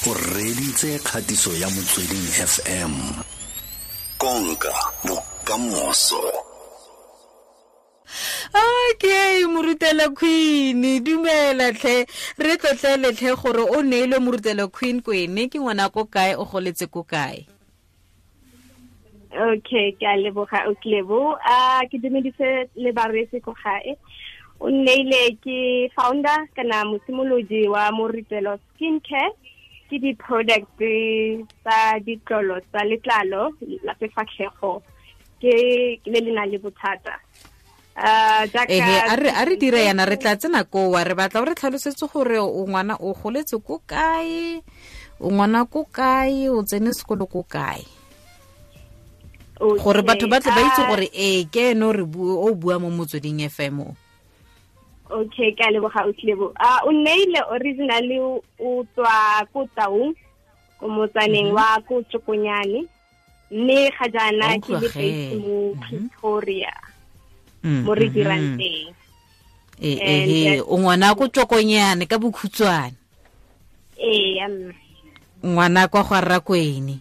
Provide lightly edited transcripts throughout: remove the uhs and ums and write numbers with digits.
O reditse kgatiso ya Motsweding FM. Konka bokamoso. Okay, Moritelo Queen, dumela tlhe, re tlotlele tlhe gore o neilwe Moritelo Queen kwene, ke ngwana ko kae, o goletse ko kae? Okay, ke a leboga, o tlebo. A ke dumedise le bareetsi ko gae. O nneile ke founder kana mosimolodi wa Moritelo Skincare. Ke di-product tsa ditlolo tsa letlalo la sefatlhego ke le le nang le bothata. Ehe, a re dire yana, re tla tsena kowa, re batla o re tlhalosetse gore o ngwana o goletse ko kae, o ngwana ko kae, o tsene sekolo ko kae. Gore batho ba tle ba itse gore ee ke ene o re o bua mo Motsweding FM o. Okay, ke a leboga, o tlebo. O nneile originally o tswa ko Taung, ko motsaneng wa ko Tšokonyane, mme ga jaana ke le based mo Pretoria, mo re dirang teng. Ee, o ngwana ko Tšokonyane ka bokhutshwane. Ee, ngwana kwa ga Rakwene.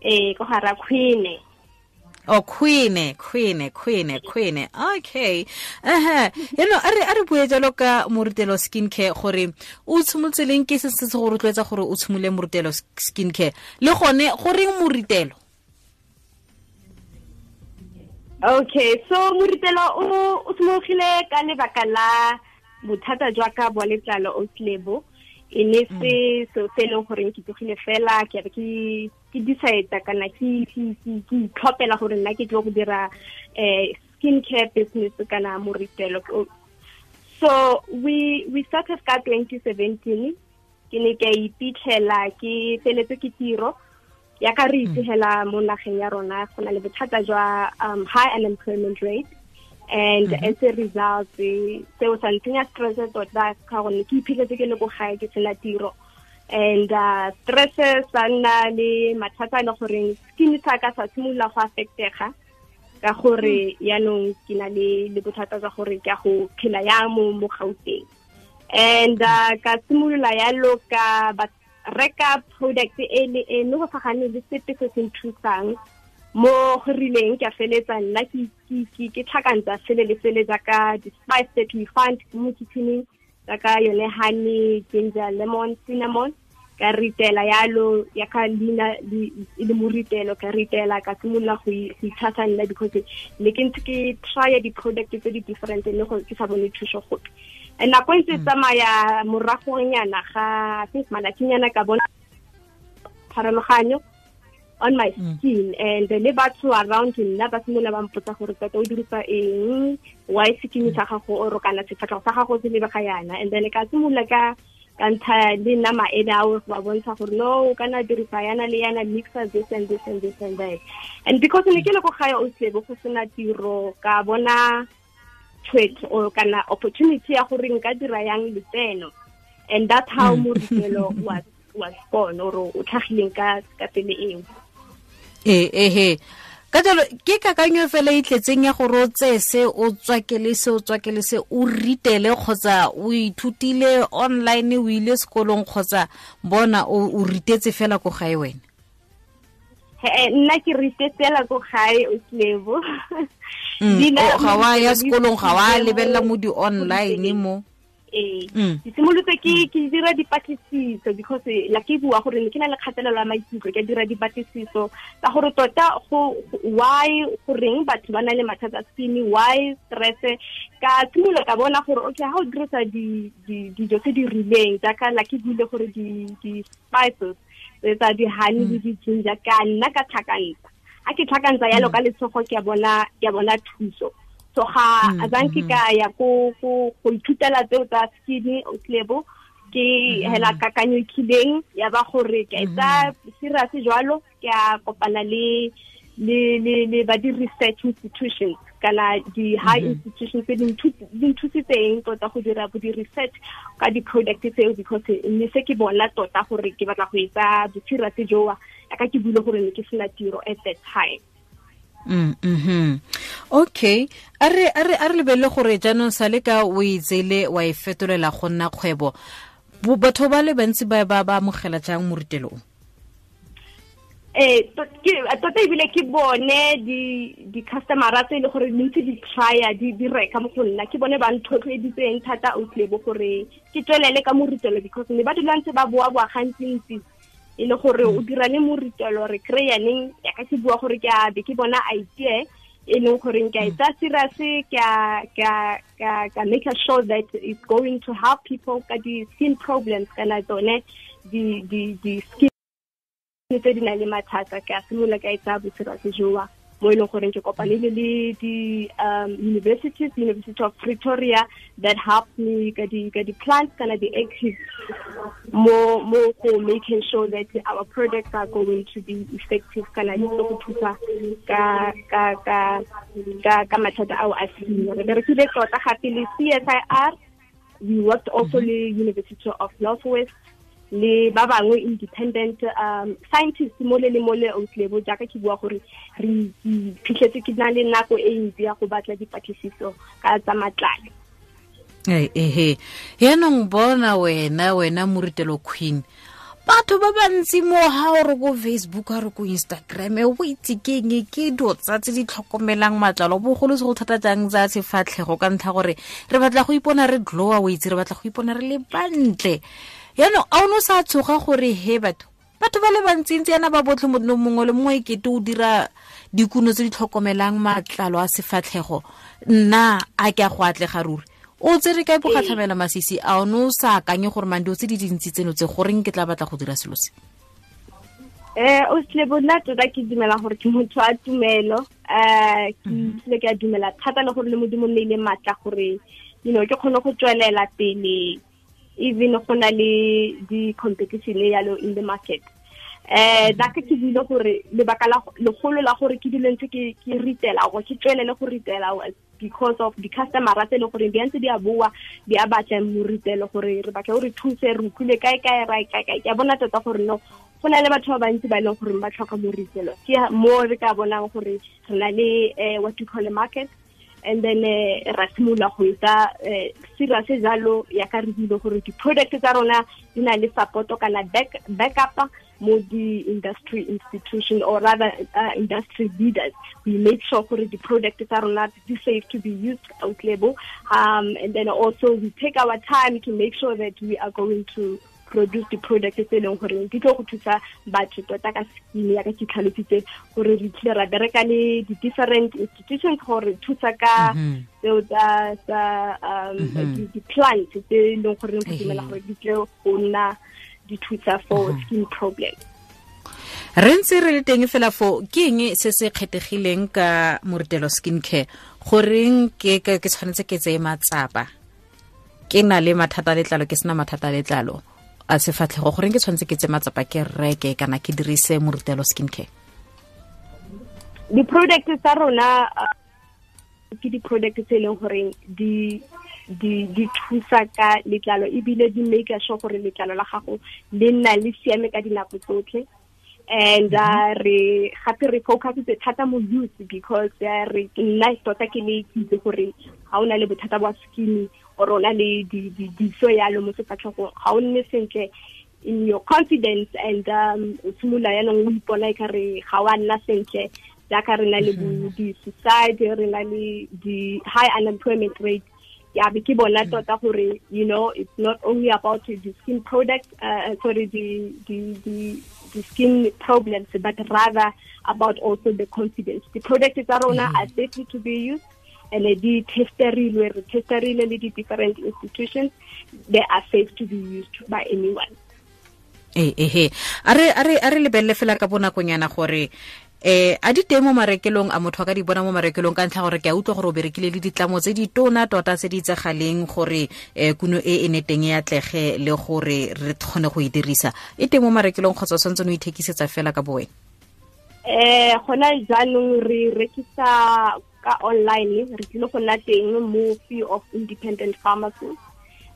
Ee, ko ga Rakwene. Oh, Queen, Queen, Queen, Queen. Okay. Aha. Eno a re bue jalo ka Moritelo Skincare gore o tshimolotse leng, ke se se go rotloetsa gore o tshimole Moritelo Skincare. Le gone go reng Moritelo? Okay, so Moritelo o tshimologile ka lebaka la bothata jwa ka bwa letlalo o tlebo. E ne se se se leng gore ke tsogile fela ke be ke decide kana ke itlhopela gore nna ke tlo go dira skincare business kana Moritelo. So we started ka 2017, ke ne ke iphitlhela ke feletse ke tiro ya ka re itsegela mo nageng ya rona go na le bothata jwa high unemployment rate, and as a result seo sa ntsenya stress tota ka gonne ke iphitlhetse ke le ko gae ke sena tiro. And stress sa nna le mathata a le goreng skin sa ka sa simolola go affectega ka gore yaanong ke na le bothata jwa gore ke a go phela yang mo Gauteng. And ka simolola yalo ka reka product e le e mme go sa gane le sepe se se nthusang mo go rileng, ke a feletsa nna ke tlhakantsa sele le sele jaaka di-spice that we find mo kitchening, jaaka yone honey, ginger, lemon, cinnamon. Ka ritela yalo ya ka leina e le Moritelo, ka ritela ka simolola go itshasa nna because ne ke ntse ke try di-product tse di different mme go ke sa bone thuso gope. And nako e ntse tsamaya moragonyana ga I think malatsinyana ka bona pharologanyo on my skin, and le batho around nna ba simolola ba mpotsa gore tota o dirisa eng, why skin sa gago o kana sefatlhego sa gago se lebega yana. And then ka simolola ka ntsha le nna maele ao go ba bontsha gore no o kana dirisa yana le yana, mixer this and this and this and that. And because ne ke le ko gae o tlebo go sena tiro, ka bona tshwetso or kana opportunity ya gore nka dira yang letseno, and that's how Moritelo was born, or o tlhagileng ka pele eo. Ehe. Ka jalo ke kakanyo fela e tletseng ya gore o tseye se o tswakele se o tswakele se o ritele, kgotsa o ithutile online, o ile sekolong, kgotsa bona o ritetse fela ko gae wena? Nna ke ritetse fela ko gae, o tlebo. Ga wa ya sekolong, ga wa lebelela mo di-online mo? Ee, ke simolotse ke dira dipatlisiso because la ke bua gore ne ke na le kgatelelo ya maikutlo, ke dira dipatlisiso tsa gore tota go why goreng batho ba na le mathata a skin, why stress. Ka simolola ka bona gore okay, ha o dirisa dijo tse di rileng jaaka la ke buile gore di-spices tsa di-honey le di-ginger, ka nna ka tlhakantsa. Ha ke tlhakantsa yalo ka letsogo ke a bona thuso. So ga azanke ka ya go ithutela tseo tsa skin o tlebo, ke hela kakanyo kileng ya ba gore ke etsa serious jwalo, ke a kopana le ba di research institutions kana di high institutions tse di nthusitseng tota go dira bo di research ka di product tseo, because ne se ke bona tota gore ke batla go etsa bo serious joa ya ka ke buile gore ne ke sena tiro at that time. Okay, a re lebelele gore jaanong sa le ka o itsele wa e fetolela go nna kgwebo. Batho ba le bantsi ba ba ba amogela jang moritelo o? Tota ebile ke bone di-customera tse e le gore ntse di trya di reka mo go nna, ke bone ba nthotloeditseng thata outlebo gore ke tswelele ka moritelo, because ne ba dula ntse ba boa-boa gantsi-ntsi e le gore o dira le moritelo re kry-a neng. Yaka ke bua gore ke a be ke bona idea e leng goreng ke a e tsaya serious, ke a make sure that it's going to help people ka di-skin problems kana tsone di-skin tse di nang le mathata. Ke a simolola ka e tsaya boserious joa mo e leng goreng ke kopanile le di-universities, University of Pretoria, that helped me ka di-plants kana di-actives mo go making sure that our products are going to be effective kana di tlo go thusa ka mathata ao a skin. Re berekile tota gape le CSIR, we worked also le University of Northwest le ba bangwe independent scientists mole le mole outlebo. Jaaka ke bua gore re phitlhetse ke na le nako e ntsi ya go batla dipatlisiso ka tsa matlalo. Ehe, yaanong bona wena moritelo queen, batho ba bantsi mo ha o re ko Facebook, ha re ko Instagram, o itse ke eng ke dilo tsa tse di tlhokomelang matlalo bogolo se go thata jang tsa sefatlhego, ka ntlha gore re batla go ipona re glowa, o itse re batla go ipona re le bantle. Yaanong a o ne o sa tshoga gore he batho ba le bantsintsi yana ba botlhe mongwe le mongwe ekete o dira dikuno tse di tlhokomelang matlalo a sefatlhego, nna a ke a go atlega ruri? O tsere kae bogatlhamela masisi a o ne o sa akanye gore mang dilo tse di dintsi tseno tse goreng ke tla batla go dira selo se? O Slebo, nna tota ke dumela gore ke motho a tumelo. Ke tlile ke a dumela thata le gore le Modimo nne ile maatla gore you know ke kgone go tswelela pele even go na le di-competition yalo in the market. Jaaka ke buile gore lebaka la legolo la gore ke dule ntse ke ritela gore ke tswelele go ritela because of di-customer tse e leng gore di ntse di a boa di a batla moritelo gore re batla gore thuse re utlwile kae kae ra kae kae. Ke a bona tota gore no go na le batho ba bantsi ba e leng gore ba tlhoka moritelo, ke mo re ka bonang gore re na le what you call a market, and then ra simolola go etsa serious jalo ya ka re buile gore di-product tsa rona di na le support kana backup mo di-industry institution or rather industry leaders. We make sure gore di-product tsa rona di safe to be used out label, and then also we take our time to make sure that we are going to produce the product tse e leng gore di tlo go thusa batho tota ka skin. Ya ka ke tlhalositse gore re tlile ra bereka le di-different institutions gore thusa ka tseo tsa di-plants tse e leng gore go dumela gore di tle go nna di thusa for skin problem. Re ntse re le teng fela fo, ke eng se se kgethegileng ka moritelo skin care? Goreng ke tshwanetse ke tseye matsapa ke na le mathata a letlalo, ke sena mathata a letlalo a sefatlhego, goreng ke tshwanetse ke tseye matsapa ke reke kana ke dirise moritelo skin care? Di-product tsa rona ke di-product tse e leng gore di thusa ka letlalo ebile di make sure gore letlalo la gago le nna le siame ka dinako tsotlhe. And re gape re focusitse thata mo youth because re nna tota ke le itse gore ga o na le bothata bwa skin or o na le diso yalo mo sefatlhegong, ga o nne sentle in your confidence and o simolola yaanong o ipona e kare ga wa nna sentle. Jaaka re na le di-suicide, re na le di-high unemployment rate, ya be ke bona tota gore you know it's not only about the skin product sorry the skin problems, but rather about also the confidence. The products tsa rona are safe to be used and di testerilwe, re testerile le di different institutions, they are safe to be used by anyone. Ehe, a re lebelele fela ka bonakonyana gore a di teng mo marekelong, a motho a ka di bona mo marekelong, ka ntlha gore ke a utlwa gore o berekile le ditlamo tse di tona tota tse di itsegaleng gore kuno e ne teng e atlege le gore re kgone go e dirisa. E teng mo marekelong kgotsa o tshwanetse o ithekisetsa fela ka bo wena? Gona jaanong re rekisa ka online, re tlile go nna teng mo few of independent pharmacies.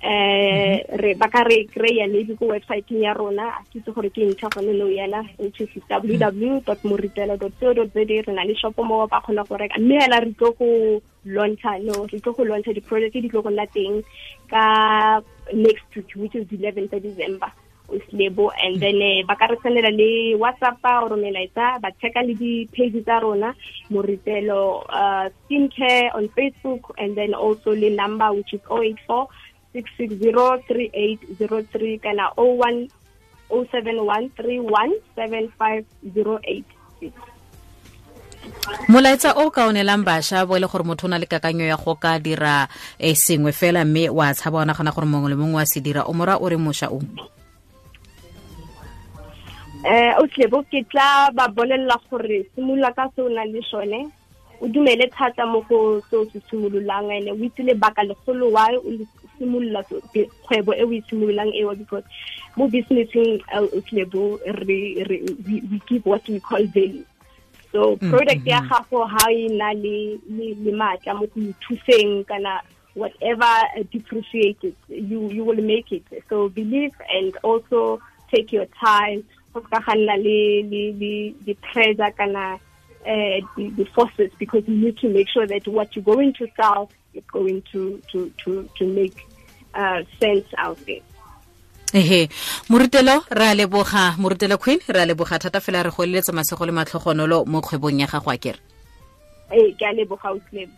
Re ba ka re kry-a maybe ko websiteng ya rona, a ke itse gore ke ntšha gone nou yana, which is www.moritelo.co.za. Re na le shop mo ba kgona go reka, mme hela re tlo go launcha, no, re tlo go launcha di-project di tlo go nna teng ka next week, which is 11th December, Lebo. And then ba ka re sendela le WhatsApp or melaetsa, ba checka le di-page tsa rona, Moritelo Skincare on Facebook, and then also le number, which is 084 660 3803 kana 01 071 31 75086. Molaetsa o ka onelang bašwa bo e le gore motho o na le kakanyo ya go ka dira sengwe fela, mme wa tshaba, wa nagana gore mongwe le mongwe wa se dira, o mora o re mošwa o? Otlebo, ke tla ba bolelela gore simolola ka se o nang le sone, o dumele thata mo go se o se simololang, ene o itse lebaka legolo why o simolola kgwebo e o e simololang eo, because mo businesseng, Otlebo, re we give what we call value. So product ya gago ha e na le maatla mo go ithuseng kana whatever depreciated, you will make it. So believe and also take your time, go ka ga nna le the pressure kana the forces, because you need to make sure that what you're going to sell is going to make sense out there. Ehe, Moritelo, re a leboga. Moritelo Queen, re a leboga thata fela, re go eletsa masego le matlhogonolo mo kgwebong ya gago, a kere? Ee, ke a leboga, Otlebo.